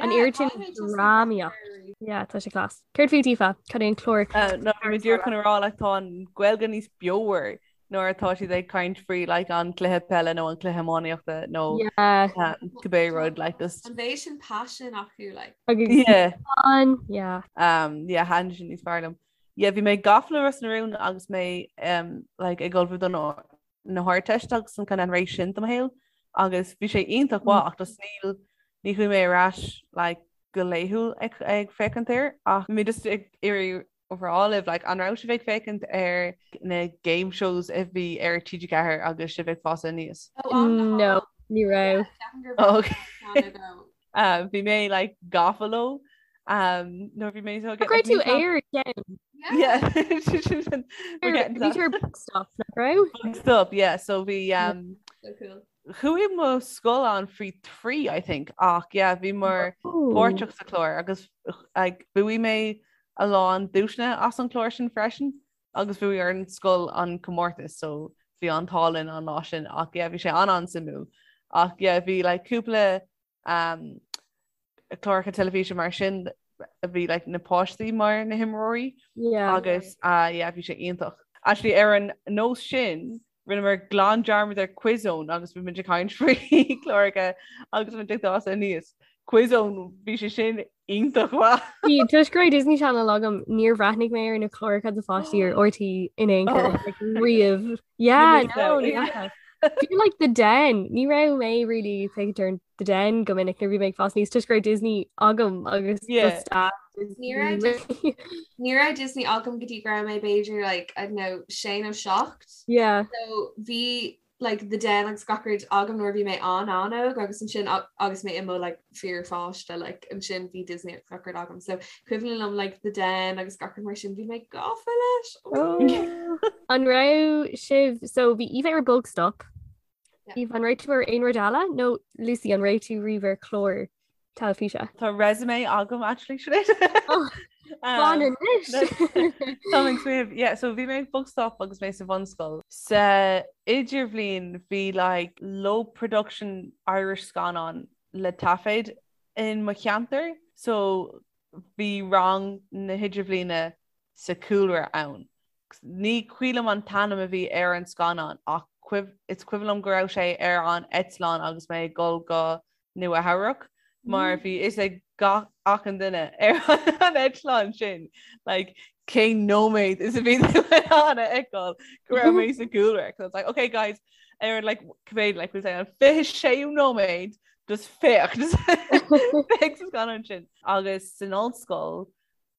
Speaker 2: An oiread sin drámaíocht. Yeah, tá sé class. Céard fút Aoife? Cad é an clár?
Speaker 4: No, bhí mé díreach chun a rá like tá an Ghaeilge níos beomhar nuair atá siad ag caint faoi like an cluiche peile nó an cluiche iománaíochta nó
Speaker 2: Yeah.
Speaker 4: cibé rud like just
Speaker 3: An méid sin passion acu like.
Speaker 2: Agus
Speaker 4: yeah.
Speaker 2: an yeah.
Speaker 4: Um, yeah, thaitin sin níos fearr liom. Yeah, bhí mé gafa le Ros na Rún agus mé um, like ag ullmhú don na hArdteist agus an kind of an ré sin de mo shaol agus bhí sé iontach mhaith ach just níl ní chuaigh mé ar ais like go laethúil ag ag féachaint air ach bhí mé just ag iarraidh rá libh like an raibh sibh ag féachaint ar na game shows a bhí ar TG4 agus sibh ag fás aníos?
Speaker 2: No, ní raibh.
Speaker 4: Oh, okay. Um, bhí mé like gafa leo um, nuair bhí mé so
Speaker 2: Go raibh tú ar ceann.
Speaker 4: Yeah.
Speaker 2: Bhí tú ar Bugstop, nach raibh?
Speaker 4: Stop, yeah, so bhí um,
Speaker 3: So cool.
Speaker 4: chuaigh mo scoil ann faoi 3 I think ach yeah, bhí mar páirteach sa chlár agus like, bhuaigh mé a lán duaiseanna as an chlár sin freisin agus bhuaigh ár scoil an comórtas so bhí an t-ádh linn an lá sin ach yeah, bhí sé an an-suimiúil ach yeah, bhí like, cúpla um, cláracha teilifíse mar sin a bhí like, na páistí mar na himreoirí
Speaker 2: Yeah.
Speaker 4: agus uh, yeah, bhí sé iontach. Actually ar an nós sin rinneamar glan dearmad ar Quiz Zone agus bhí muid ag caint faoi chláracha agus muid ag fás aníos. Quiz Zone bhí sé sin iontach mhaith.
Speaker 2: Bhí toisc go raibh Disney Channel agam níor bhreathnaigh mé ar na cláracha do pháistí ar RTÉ in aon chor
Speaker 4: Oh.
Speaker 2: like, riamh. Yeah,
Speaker 4: missed
Speaker 2: no,
Speaker 4: out.
Speaker 2: ní fhaca. Bhí like The Den ní raibh mé really ag féachaint ar The Den go minic nuair bhí mé ag fás aníos toisc go raibh Disney agam agus
Speaker 4: Yeah.
Speaker 2: just a
Speaker 3: Ní raibh Ní raibh Disney agam go dtí go raibh mé b'fhéidir like I don't know sé nó 7.
Speaker 2: Yeah.
Speaker 3: So bhí like The Den agus gach rud agam nuair a bhí mé an an-óg agus ansin agus mé i mo like fíorpháiste like ansin bhí Disney agus gach rud agam. So cuimhin liom like The Den agus gach rud mar sin bhí mé gafa leis.
Speaker 2: Oh. An raibh sibh so bhí Aoife ar Bugstop.
Speaker 3: Yeah.
Speaker 2: Aoife an raibh tú ar aon rud eile nó Lucy an raibh tú riamh ar chlár teilifíse?
Speaker 4: Tá resume agam actually Sinéad.
Speaker 2: Oh,
Speaker 4: Um,
Speaker 2: Fan anois.
Speaker 4: Tá ag smaoineamh, yeah, so bhí mé ag Bugstop agus mé sa bhunscoil. Sa idirbhliain bhí like low production Irish scannán le taifead in mo cheantar, so bhí rang na hidirbhliana sa chúlra ann. Ní cuimhin liom an t-ainm a bhí ar an scannán ach is cuimhin liom go raibh sé ar an eitleán agus mé ag dul go Nua Eabhrac mar bhí fhios ag gach achan duine ar an eitleán sin like cén nóiméad is a bhí tú in ann a fheiceáil go raibh mé sa gcúlra. So it's like, okay guys, ar like cibé like we'll say an 26ú nóiméad just féach just féach sa scannán sin. Agus san ollscoil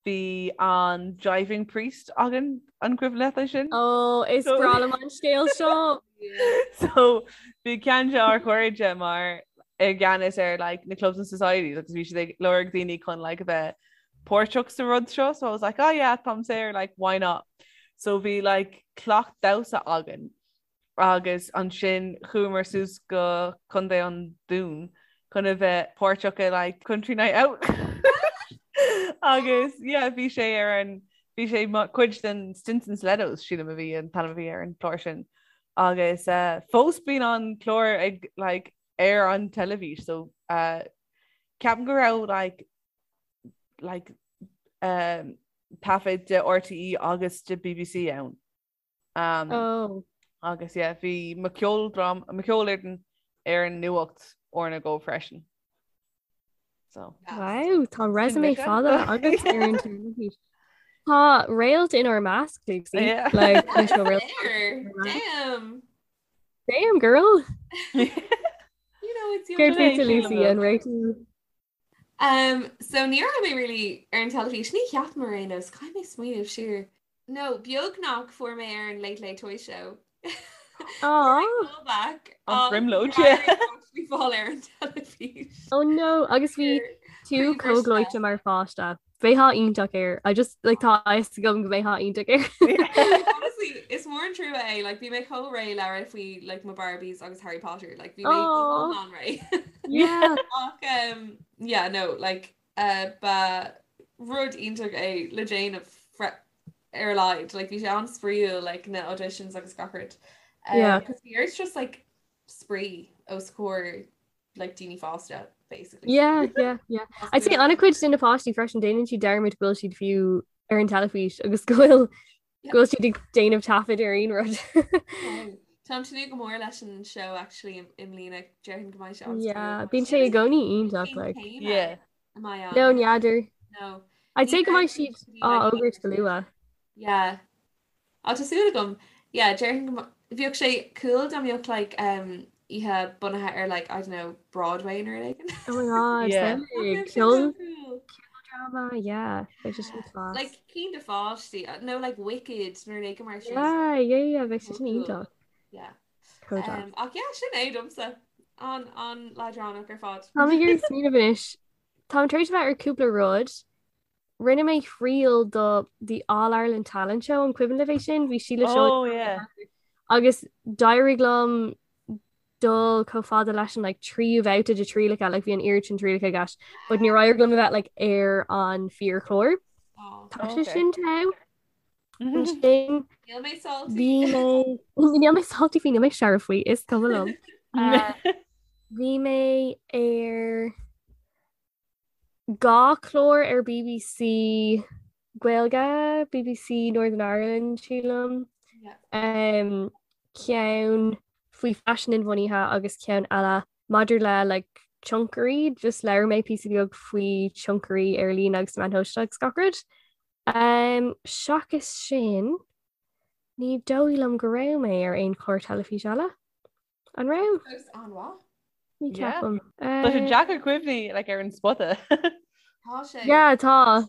Speaker 4: Bhí an Jiving Priest againn an cuimhin leat é sin?
Speaker 2: Ó is breá liom an scéal seo!
Speaker 4: So bhí ceann de ár chairde mar i gceannas ar like na clubs and societies agus bhí siad ag lorg daoine chun like a bheith páirteach sa rud seo so I was like oh yeah táim saor like why not? So bhí like cleacht damhsa againn agus ansin chuamar suas go Contae an Dúin chun a bheith páirteach i like Country Night Out agus yeah bhí sé ar an bhí sé cuid den Stinson Stilettos sílim a bhí an t-ainm a bhí ar an chlár sin agus uh, fós bíonn an clár ag like ar an teilifís so uh, ceapaim go raibh like like um, taifead de RTÉ agus de BBC ann. Um,
Speaker 2: oh.
Speaker 4: Agus yeah, bhí mo cheoldrám mo cheolfhoireann ar an nuacht uair nó dhó freisin. So.
Speaker 2: Wow, tá resume fada agat ar an teilifís. Tá réalt inár measc, Lucy.
Speaker 4: Yeah.
Speaker 2: Like, leis na réalt.
Speaker 3: Damn.
Speaker 2: Damn, girl.
Speaker 3: You know, it's your
Speaker 2: Céard
Speaker 4: Sin é,
Speaker 2: fút
Speaker 4: sílim
Speaker 2: Lucy
Speaker 4: go.
Speaker 2: an raibh tú
Speaker 3: Um, so ní raibh mé really ar an teilifís ní cheapaim ar aon nós caithfidh mé smaoineamh siar. No, beagnach fuair mé ar an Late Late Toy Show.
Speaker 2: Aw.
Speaker 3: Callback
Speaker 4: An bhrionglóid, yeah.
Speaker 3: Bhí fáil ar an teilifís.
Speaker 2: Oh no, agus bhí
Speaker 3: Ar.
Speaker 2: tú chomh gleoite mar pháiste. Bheifeá iontach air. I just like tá a fhios agam go mbeifeá iontach air.
Speaker 3: Honestly, is mór an trua é, like bhí mé chomh réidh le rá faoi like mo Barbies agus Harry Potter, like bhí mé iomlán réidh.
Speaker 2: Yeah.
Speaker 3: Ach um, yeah, no, like uh, ba rud iontach é le déanamh ar a laghad, like bhí sé an-spraíúil like na auditions agus gach rud. Um,
Speaker 2: Yeah.
Speaker 3: Cos bhí ort just like spraoi os comhair like daoine fásta basically.
Speaker 2: Yeah, yeah, yeah. I'd say an-chuid de na páistí freisin déanann siad dearmad go bhfuil siad fiú ar an teilifís agus go bhfuil go bhfuil siad ag déanamh taifead ar aon rud.
Speaker 3: Táim ag tnúth go mór leis an show actually i mbliana déarfainn go mbeidh sé an
Speaker 2: Yeah, bíonn sé i gcónaí iontach like.
Speaker 4: Yeah.
Speaker 2: No, n'fheadar.
Speaker 3: No.
Speaker 2: I'd say go mbeidh siad á fhógairt go luath.
Speaker 3: Yeah. Á tá súil agam. Yeah, déarfainn go bheadh sé cool dá mbeadh like um, oíche bunaithe ar like, I don't know, Broadway nó rud éigin.
Speaker 2: Oh my god,
Speaker 4: Yeah.
Speaker 2: samhlaigh.
Speaker 3: That'd be so
Speaker 2: Ceol
Speaker 3: cool.
Speaker 2: drama, yeah. Bheadh sé sin class.
Speaker 3: Like cinn do pháistí, uh, nó like Wicked nó rud éigin mar sin.
Speaker 2: Yeah, yeah, yeah, bheadh sé sin
Speaker 3: Cool.
Speaker 2: iontach.
Speaker 3: Yeah.
Speaker 2: Chomh deas.
Speaker 3: Um, ach yeah, sin é domsa. An an leadránach ar fad.
Speaker 2: Táim ag iarraidh smaoineamh anois. Táim tar éis a bheith ar cúpla rud. Rinne mé triail do The All Ireland Talent Show an cuimhin libh é sin? Bhí Síle Seoige
Speaker 4: Oh yeah.
Speaker 2: agus d'éirigh liom dul chomh fada leis an like, tríú babhta de trialacha like, bhí an oiread sin trialacha i gceist, but níor éirigh liom a bheith like, ar an fíorchlár.
Speaker 3: Oh.
Speaker 2: Tá sé
Speaker 4: Okay.
Speaker 2: sin togha. Ansin
Speaker 3: Níl mé salty.
Speaker 2: bhí mé níl mé salty faoi níl mé searbh faoi is cuma liom. Uh, Bhí mé ar 2 chlár ar BBC Gaeilge, BBC Northern Ireland sílim, um, ceann faoi faisean inbhuanaithe agus ceann eile maidir le like, tionchairí, just labhair mé píosa beag faoi tionchairí ar líne agus meáin shóisialta agus gach rud. Um, seachas sin, ní dóigh liom go raibh mé ar aon chlár teilifíse eile. An raibh?
Speaker 3: Fós an-mhaith.
Speaker 2: Ní
Speaker 4: Yeah.
Speaker 2: ceapaim.
Speaker 4: Tá sé deacair cuimhní like, ar an spota.
Speaker 3: Tá sé.
Speaker 2: Yeah, tá.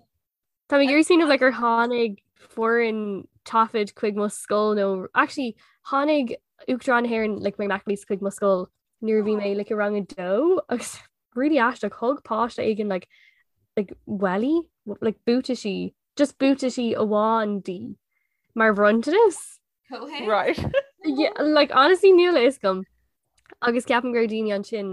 Speaker 2: Tá mé ag iarraidh smaoineamh like, ar tháinig foireann taifid chuig mo scoil nó actually tháinig Uachtarán na hÉireann like, Mary McAleese chuig mo scoil nuair a bhí mé like, i rang a dó agus really aisteach thug páiste éigin like, like, welly like, buataisí just buataisí amháin di mar bhronntanas.
Speaker 3: Comhthéacs?
Speaker 4: Right.
Speaker 2: Yeah, like honestly níl a fhios agam. Agus ceapaim go raibh daoine ansin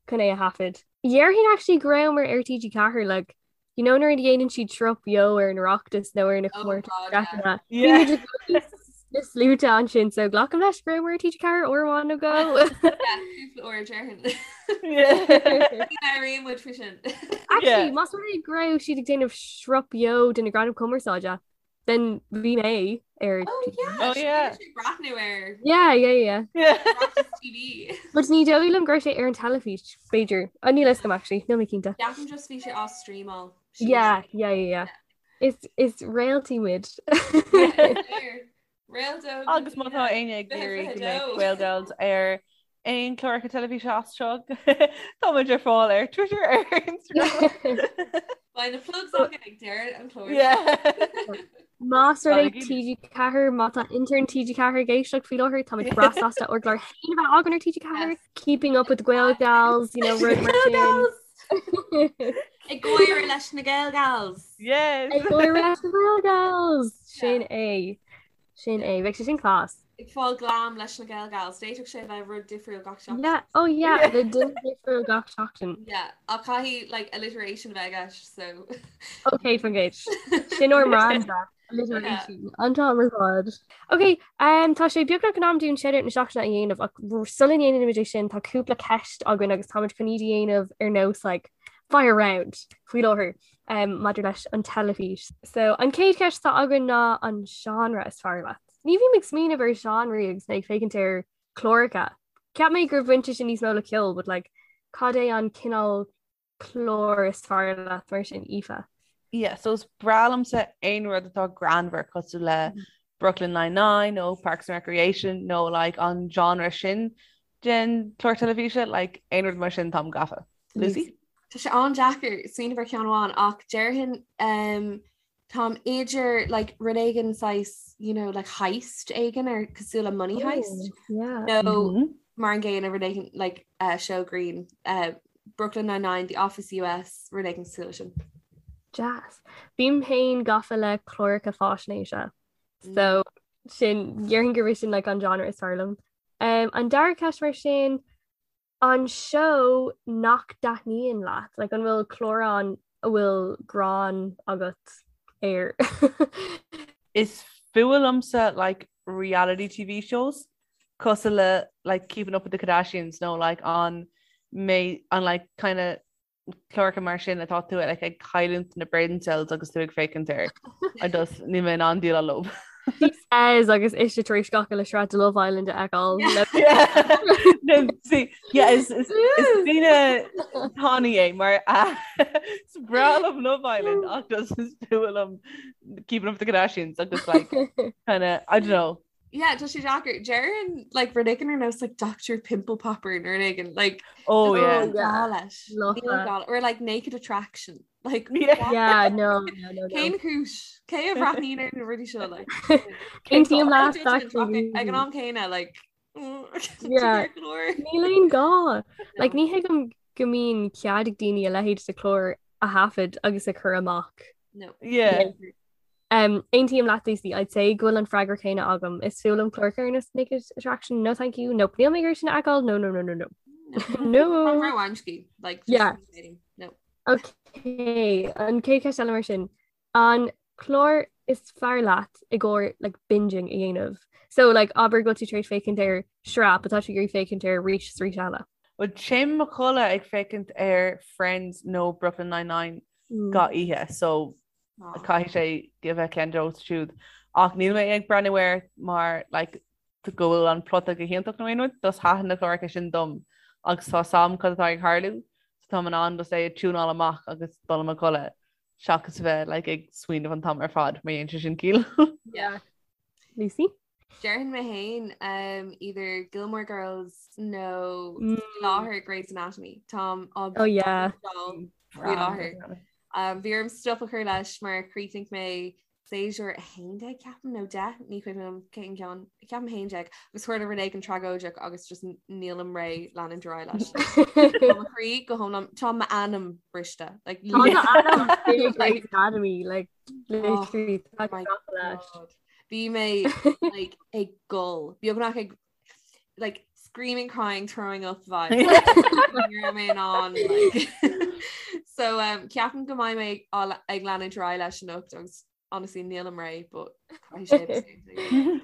Speaker 2: chun é a thaifead. Déarfainn actually go rabhamar ar TG4 like you know nuair a dhéanann siad sruth beo ar an Oireachtas nó ar na
Speaker 3: Oh
Speaker 2: comórtais
Speaker 3: God, yeah.
Speaker 2: Breataine. Bhí
Speaker 4: Yeah.
Speaker 2: muid i gcónaí na sluaite ansin so glacaim leis go rabhamar ar TG4 uair amháin nó dhó.
Speaker 3: Yeah, cúpla uair déarfainn.
Speaker 4: Yeah.
Speaker 3: Ní labhraíonn muid faoi sin.
Speaker 2: Actually,
Speaker 4: Yeah.
Speaker 2: más rud é go raibh siad ag déanamh sruth beo de na Gradaim Cumarsáide, Then bhí mé ar
Speaker 3: Oh yeah,
Speaker 4: Oh, yeah.
Speaker 3: sin sé breathnú ar
Speaker 2: Yeah, yeah, yeah.
Speaker 4: Yeah.
Speaker 3: Oireachtas TV.
Speaker 2: But ní dóigh liom go raibh sé ar an teilifís, b'fhéidir. Oh, níl a fhios agam actually, níl mé cinnte.
Speaker 3: Ceapaim just bhí sé á streamáil.
Speaker 2: Yeah, yeah, yeah, yeah. Is is réaltaí muid.
Speaker 3: Réalta.
Speaker 4: Agus má tá éinne ag iarraidh go mbeidh Gael Gals ar aon chláracha teilifíse as seo tá muid ar fáil ar Twitter ar Instagram.
Speaker 3: Beidh na plugs againn ag deireadh an chláir.
Speaker 4: Yeah.
Speaker 2: Más rud é
Speaker 4: Balaigí.
Speaker 2: TG4 má tá intern TG4 ag éisteacht faoi láthair tá muid breá sásta ár gclár féin a bheith againn ar TG4 Keeping up with the Gael Gals, you know, rud mar sin.
Speaker 3: Ag gáire leis na Gael Gals.
Speaker 4: Yes.
Speaker 2: Ag gáire leis na Gael Gals. Sin é. Sin é. Bheadh sé sin class.
Speaker 3: Ag fáil glam leis na Gael Gals. D'fhéadfadh sé bheith rud difriúil gach seachtain.
Speaker 2: Yeah. Oh yeah, le duine difriúil gach seachtain.
Speaker 3: Yeah, ach caithfidh like alliteration a bheith i gceist, so.
Speaker 2: Ok, fan gcéid. Sin ár mbranda. Alliteration. An t-am ar fad. Ok, um, tá sé beagnach in am dúinn shoutout na seachtaine a dhéanamh ach sula ndéanaimid é sin tá cúpla ceist againn agus táimid chun iad a dhéanamh ar nós like, fire round faoi láthair. um, maidir leis an teilifís. So an chéad cheist atá againn ná an genre is fearr leat. Ní bhím ag smaoineamh ar genre agus mé ag féachaint ar chláracha. Cheap mé gur bhain sé sin níos mó le ceol, but like, cad é an cineál clár is fearr leat mar sin Aoife?
Speaker 4: Yeah, so is breá liomsa aon rud atá greannmhar cosúil le Brooklyn Nine-Nine nó Parks and Recreation nó like an genre sin den chlár teilifíse, like aon rud mar sin táim gafa. Lucy?
Speaker 3: Tá sé an-deacair smaoineamh ar cheann amháin ach déarfainn um, táim idir like, rud éigin saghas you know, like heist éigin ar cosúil le Money Heist
Speaker 2: yeah.
Speaker 3: nó
Speaker 4: Mm -hmm.
Speaker 3: mar an gcéanna rud éigin like, uh, show grinn uh, Brooklyn Nine-Nine, The Office US, rud éigin cosúil leis sin.
Speaker 2: Deas. Bím féin gafa le cláracha faisnéise. So sin déarfainn gurb é sin like an genre is fearr liom. Um, an dara ceist mar sin, an seó nach dtaitníonn leat, like an bhfuil clár ann a bhfuil gráin agat air?
Speaker 4: Is fuath liomsa like reality TV shows cosúil le like Keeping Up with the Kardashians nó like an mé an like kind of cláracha mar sin atá tú like ag cailliúint na brain cells agus tú ag féachaint air. I just níl mé in ann déileáil leo.
Speaker 2: She says agus ise tar éis gach uile sraith de Love Island a fheiceáil.
Speaker 4: No, see, yeah, is is is duine tanaí é mar is breá liom Love Island ach just is fuath liom Keeping Up with the Kardashians agus like kind of I don't know
Speaker 3: Yeah, tá sé deacair. Déarfainn like rud éigin ar nós like Dr. Pimple Popper nó rud éigin like
Speaker 4: Oh yeah.
Speaker 3: Níl gá leis.
Speaker 2: Love
Speaker 3: Níl
Speaker 2: that.
Speaker 3: gá or like Naked Attraction. Like
Speaker 4: Yeah.
Speaker 2: Yeah, no, no, no, no.
Speaker 3: Cén chúis? Cé a bhreathnaíonn ar na rudaí seo like?
Speaker 2: Aontaím leat,
Speaker 3: Judgment
Speaker 2: actually.
Speaker 3: Ag an am céanna like
Speaker 2: Yeah.
Speaker 3: Níl
Speaker 2: Níl aon gá. Like ní thuigim go mbíonn cead ag daoine a leithéid de chlár a thaifead agus a chur amach.
Speaker 3: No.
Speaker 4: Yeah.
Speaker 2: Um, Aontaím leat Lucy, I'd say go bhfuil an freagra céanna agam. Is fuath liom cláracha ar nós Naked Attraction, no thank you, nope, níl mé ag iarraidh sin a fheiceáil, no, no, no, no, no. No.
Speaker 3: Róamscaí, like, just
Speaker 2: Yeah.
Speaker 3: No.
Speaker 2: Okay, an chéad cheist eile mar sin. An clár is fearr leat i gcomhair like, binging a dhéanamh? So like, abair go bhfuil tú tar éis féachaint ar sraith, but tá tú ag iarraidh féachaint air arís is arís eile.
Speaker 4: Well, téim i mo chodladh ag féachaint ar Friends nó Brooklyn Nine-Nine
Speaker 2: Mm.
Speaker 4: gach oíche, so caithfidh sé a bheith ceann díobh siúd. Ach níl mé ag breathnú air mar like, go bhfuil an plota go hiontach nó aon rud, just thaitin na cláracha sin dom agus tá a fhios agam cad atá ag tarlú, so táim in ann just é a tiúnáil amach agus dul i mo chodladh seachas a bheith like, ag smaoineamh an t-am ar fad mar dhéanann sé sin ciall.
Speaker 2: Yeah. Lucy?
Speaker 3: Déarfainn mé féin um, either Gilmore Girls nó mm. láthair Grey's Anatomy. Táim á
Speaker 2: oh, yeah.
Speaker 3: faoi láthair. Um, bhí orm stop a chur leis mar chríochnaigh mé séasúr 11 ceapaim nó 10 ní cuimhin liom cén ceann ceapaim 11 agus tharla rud éigin tragóideach agus just nílim réidh leanúint ar aghaidh leis. Tá mo chroí go hiomlán tá m'anam briste like,
Speaker 2: Grey's Anatomy like literally
Speaker 3: Oh my God. Bhí mé like, ag gol beagnach ag like screaming crying throwing up vibe Ní raibh mé in ann like. So um, ceapaim go mbeidh mé á- ag leanúint ar aghaidh leis anocht agus honestly nílim réidh but caithfidh sé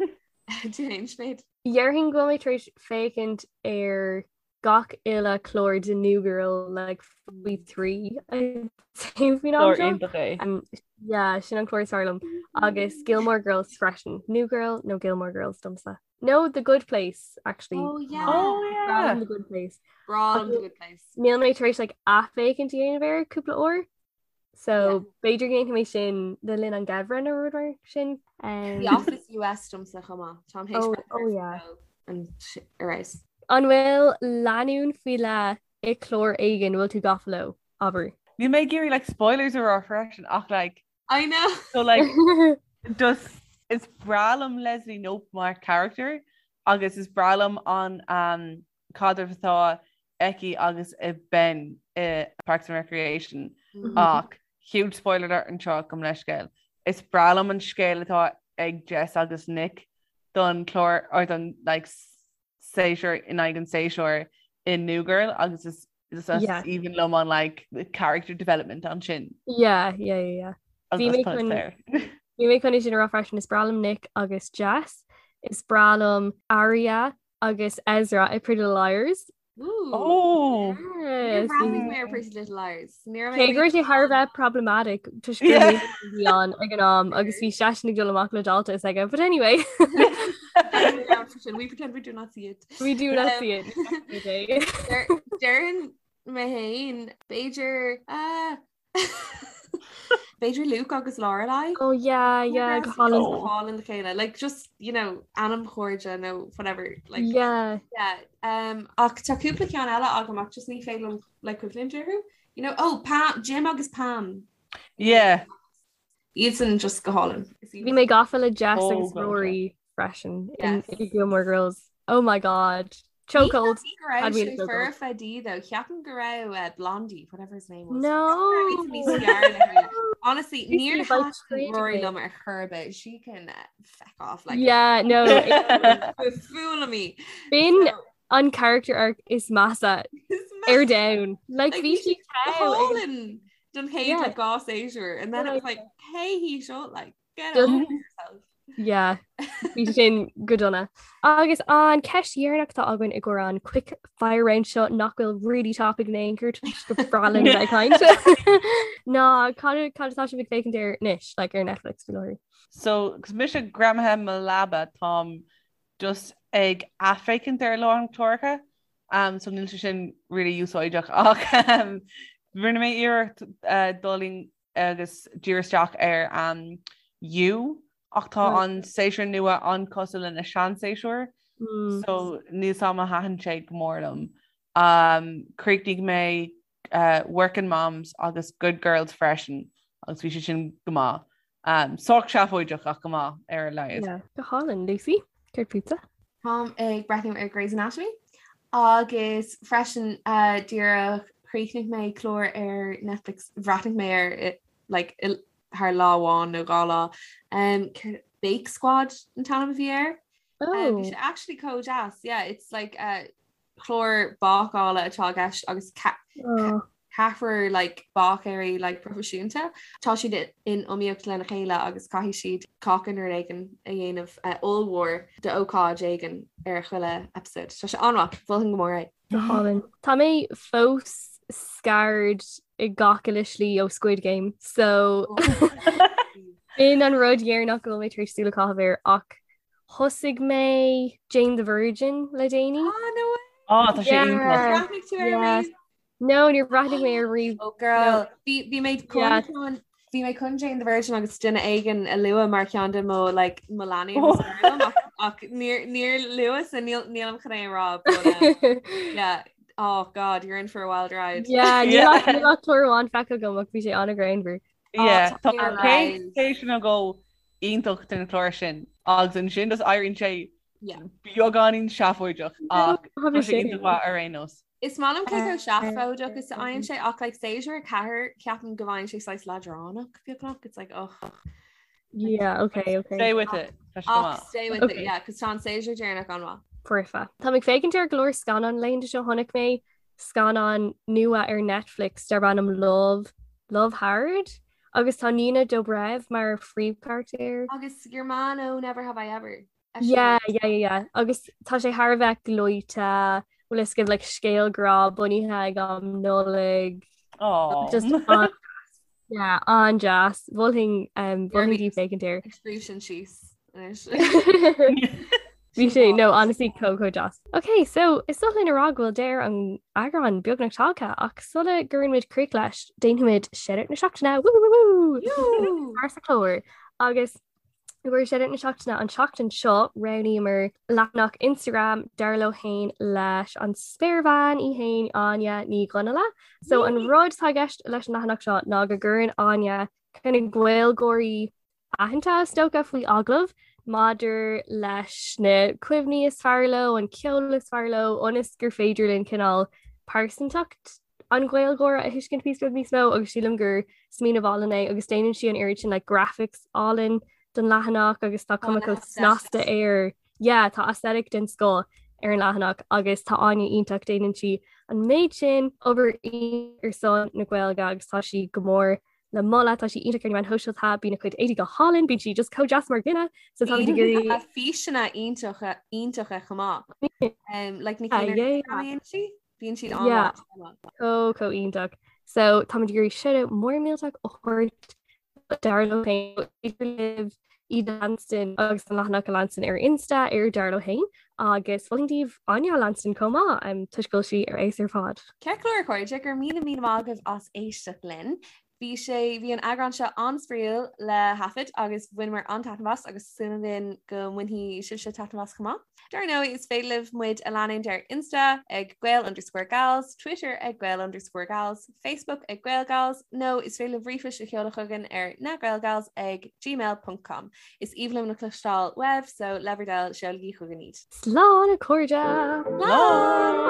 Speaker 3: Tú féin Sinéad?
Speaker 2: Déarfainn go bhfuil mé tar éis féachaint ar gach uile clár de New Girl like faoi thrí faoin am
Speaker 4: Clár
Speaker 2: seo.
Speaker 4: iontach é.
Speaker 2: Um, yeah, sin an clár is fearr liom. Agus Gilmore Girls freisin. New Girl nó Gilmore Girls domsa. No, The Good Place actually.
Speaker 3: Oh yeah.
Speaker 4: Oh yeah.
Speaker 2: The Good Place.
Speaker 3: Breá liom The Good Place.
Speaker 2: Níl mé tar éis like athfhéachaint a dhéanamh air cúpla uair. So b'fhéidir go ndéanfaidh mé sin le linn an gheimhridh nó rud mar sin. Um,
Speaker 3: The Office US domsa chomh maith. Táim
Speaker 2: Oh, oh, yeah.
Speaker 3: an arais.
Speaker 2: An bhfuil lánúin faoi leith i clár éigin bhfuil tú gafa leo, abair?
Speaker 4: Níl mé ag iarraidh like spoilers a rá freisin ach like
Speaker 3: I know.
Speaker 4: so like just is breá liom Leslie Knope mar character agus is breá liom an um, caidreamh atá aici agus a Ben i Parks and Recreation
Speaker 3: mm-hmm.
Speaker 4: ach huge spoiler alert anseo gabh mo leithscéal. Is breá liom an scéal atá ag Jess agus Nick don chlár or don like séasúr in aghaidh an séasúir in New Girl agus is is
Speaker 2: Yeah.
Speaker 4: aoibhinn liom an like character development ansin.
Speaker 2: Yeah, yeah, yeah, yeah.
Speaker 4: Agus
Speaker 2: Bhí mé
Speaker 4: tá
Speaker 2: chun-
Speaker 4: there.
Speaker 2: Bhí mé chun é sin a rá freisin is breá liom Nick agus Jess, is breá liom Aria agus Ezra i Pretty Little Liars.
Speaker 3: Ooh.
Speaker 4: Oh!
Speaker 2: Yes.
Speaker 3: Níor bhreathnaigh mé ar Pretty Little Liars. Ní raibh mé
Speaker 2: Cé go raibh sé thar a bheith problematic toisc gur
Speaker 4: Yeah.
Speaker 2: mé a bhí ann ag an am agus bhí seisean ag dul amach le dalta is aige. But anyway,
Speaker 3: We pretend we do not see it.
Speaker 2: we do not
Speaker 3: Um,
Speaker 2: see it. Okay.
Speaker 3: Déarfainn mé féin b'fhéidir ah, B'fhéidir Luke agus Lorelai.
Speaker 2: Oh yeah, yeah, go hálainn.
Speaker 3: Go hálainn le chéile. Like just, you know, anamchairde nó whatever. Like
Speaker 2: Yeah.
Speaker 3: yeah. Um, ach tá cúpla ceann eile agam ach just ní féidir liom like cuimhneamh orthu. You know, oh, Pam, Jim agus Pam.
Speaker 4: Yeah.
Speaker 3: Iadsan just go hálainn.
Speaker 2: Bhí mé gafa le Jess
Speaker 4: Oh,
Speaker 2: agus
Speaker 4: God,
Speaker 2: Rory freisin in
Speaker 3: Yes.
Speaker 2: in Gilmore Girls. Oh my God. Chokehold.
Speaker 3: Ní go raibh sé foirfe di though. Ceapaim go raibh uh, Blondie, whatever his name was.
Speaker 2: No.
Speaker 3: Honestly, níor thaitin Rory liom ar chor ar bith. She can uh, feck off like
Speaker 2: Yeah, no.
Speaker 3: Fool me.
Speaker 2: B'in an character arc is measa ar domhan. Like bhí sí
Speaker 3: don chéad like dhá séasúr and then it was like hey he seo like Get over yourself.
Speaker 2: Yeah, bhí sin go dona. Agus an ceist dheireanach atá againn i gcomhair an quick fire round seo nach bhfuil really topic in aon chor toisc gur breá linn bheith ag caint. Ná cad cad atá sibh ag féachaint air anois, like ar Netflix faoi láthair?
Speaker 4: So, 'cause mise greamaithe i mo leaba táim just ag athfhéachaint ar a lán cláracha um, so níl sé sin really úsáideach ach um, rinne mé iarracht uh, dul in agus díriú isteach ar um, You ach tá an séasúr nua an-chosúil lena seanséasúr mm. so níl a fhios agam ar thaitin sé go mór liom. Um, chríochnaigh mé uh, Working Moms agus Good Girls freisin agus bhí sé sin go maith. Um, sách seafóideach ach go maith ar a laghad.
Speaker 2: Yeah. Go hálainn, Lucy, céard fútsa?
Speaker 3: Táim ag breathnú ar Grey's Anatomy agus freisin uh, díreach chríochnaigh mé clár ar Netflix bhreathnaigh mé air like, thar lá amháin nó dhá lá. Um, Bake Squad an t-ainm a bhí air.
Speaker 2: Oh.
Speaker 3: Um, bhí sé actually chomh deas. Yeah, it's like uh, clár bácála atá i gceist agus
Speaker 2: oh.
Speaker 3: ceathrar like, báicéirí like, proifisiúnta. Tá siad in iomaíocht lena chéile agus caithfidh siad cáca nó rud éigin a dhéanamh uh, ollmhór d'ócáid éigin ar chuile episode. Tá sé an-mhaith, mholfainn go mór é.
Speaker 2: Go hálainn. Tá mé fós scarred i gach uile slí ó Squid Game, so b'in an rud dheireanach go bhfuil mé tar éis súil a chaitheamh air ach Thosaigh mé Jane the Virgin le déanaí.
Speaker 3: Ah, no way!
Speaker 4: Ah, tá sé
Speaker 2: Yeah.
Speaker 4: iontach.
Speaker 3: Bhreathnaigh tú air
Speaker 2: Yeah.
Speaker 3: riamh?
Speaker 2: No, níor bhreathnaigh mé air riamh.
Speaker 3: Oh girl, bhí bhí mé chun
Speaker 2: Yeah.
Speaker 3: chun bhí mé chun Jane the Virgin agus duine éigin a lua mar cheann de mo like mo leanaí
Speaker 4: Oh.
Speaker 3: is fearr liom, ach ach níor níor luas a níl nílim chun é a rá but um, yeah oh god you're in for a wild ride.
Speaker 2: Yeah, níl
Speaker 4: Yeah.
Speaker 2: ach níl ach clár amháin feicthe agam ach bhí sé an-ghreannmhar.
Speaker 4: Yeah,
Speaker 3: Oh,
Speaker 4: tá
Speaker 3: tá
Speaker 4: an chéad séasúr nó dhó iontach den chlár sin agus ansin just éiríonn sé
Speaker 3: Yeah.
Speaker 4: beagáinín seafóideach ach
Speaker 2: Tá
Speaker 4: tá sé iontach maith ar aon nós.
Speaker 3: Is maith liom cé chomh seafóideach is a fhaigheann sé ach like séasúr 4 ceapaim go bhfaigheann sé saghas leadránach beagnach it's like oh
Speaker 2: Yeah, okay, okay.
Speaker 4: Stay with it. Tá sé go
Speaker 3: ach
Speaker 4: maith.
Speaker 3: stay with it
Speaker 2: Okay.
Speaker 3: yeah cos tá an séasúr deireanach an-mhaith.
Speaker 2: Foirfe. Tá mé ag féachaint ar go leor scannán laethanta seo chonaic mé scannán nua ar Netflix darb ainm Love, Love Hard agus tá Nina Dobrev mar phríomhcharachtar.
Speaker 3: Agus your man ó Never Have I Ever.
Speaker 2: Yeah, yeah, yeah, yeah. Agus tá sé thar a bheith gleoite, bhfuil fhios agaibh like scéal grá bunaithe ag am Nollaig.
Speaker 4: Aw.
Speaker 2: Just an yeah, an-deas. Mholfainn um, mholfainn daoibh féachaint air.
Speaker 3: Ag scríobh sin síos anois.
Speaker 2: Bhí sé no honestly chomh chomh deas. Ok, so is oth linn a rá go bhfuil deireadh an eagráin beagnach tagtha ach sula gcuireann muid críoch leis, déanfaimid Shoutout na Seachtaine woo woo woo
Speaker 3: Woo!
Speaker 2: Mar sa chlár agus i gcomhair Shoutout na Seachtaine an tseachtain seo roghnaíomar leathanach Instagram dar leo féin leis an spéirbhean í féin Áine Ní Dhonnaile. So an rud atá i gceist leis an leathanach seo ná go gcuireann Áine kind of Gaeilgeoirí aitheanta is dócha faoi agallamh maidir leis na cuimhní is fearr leo, an ceol is fearr leo, ionas gur féidir linn cineál pearsantacht an Ghaeilgeora a thuiscint píosa beag níos mó agus sílim gur smaoineamh álainn é agus déanann sí an oiread sin like graphics álainn don leathanach agus tá cuma chomh snasta air. Yeah, tá aesthetic den scoth ar an leathanach agus tá Áine iontach déanann sí an méid sin obair ar son na Gaeilge agus tá sí go mór le moladh, tá sí iontach ar na meáin shóisialta, bíonn a cuid éadaí go hálainn, bíonn sí just chomh deas mar dhuine, so táimid ag iarraidh.
Speaker 3: Bíonn físeanna iontacha iontacha chomh maith. Um, like na
Speaker 2: Ah,
Speaker 3: cinn ar
Speaker 2: yeah, yeah.
Speaker 3: Instagram a dhéanann sí, bíonn siad
Speaker 2: Yeah.
Speaker 3: an-mhaith.
Speaker 2: Chomh chomh iontach. So táimid ag iarraidh shoutout mór millteach a thabhairt dar leo féin idir libh iad a leanstan agus an leathanach a leanstan ar Insta ar dar leo féin agus mholfainn daoibh Áine a leanstan chomh maith um, toisc go bhfuil sí ar fheabhas ar fad.
Speaker 3: Ceart go leor a chairde, go raibh míle míle maith agaibh as éisteacht linn. Bhí sé, bhí an eagrán seo an-spraíúil le thaifead agus bhaineamar an-taitneamh as agus súil againn go mbainfidh sibhse taitneamh as chomh maith. Dar ndóigh, is féidir libh muid a leanúint ar Insta ag Gael underscore Gals, Twitter ag Gael underscore Gals, Facebook ag Gael Gals, nó is féidir libh ríomhphoist a sheoladh chugainn ar nagaelgals ag gmail ponc com. Is aoibhinn liom le cloisteáil uaibh, so le bhur dtoil, seolaigí chugainn iad.
Speaker 2: Slán a chairde!
Speaker 3: Slán!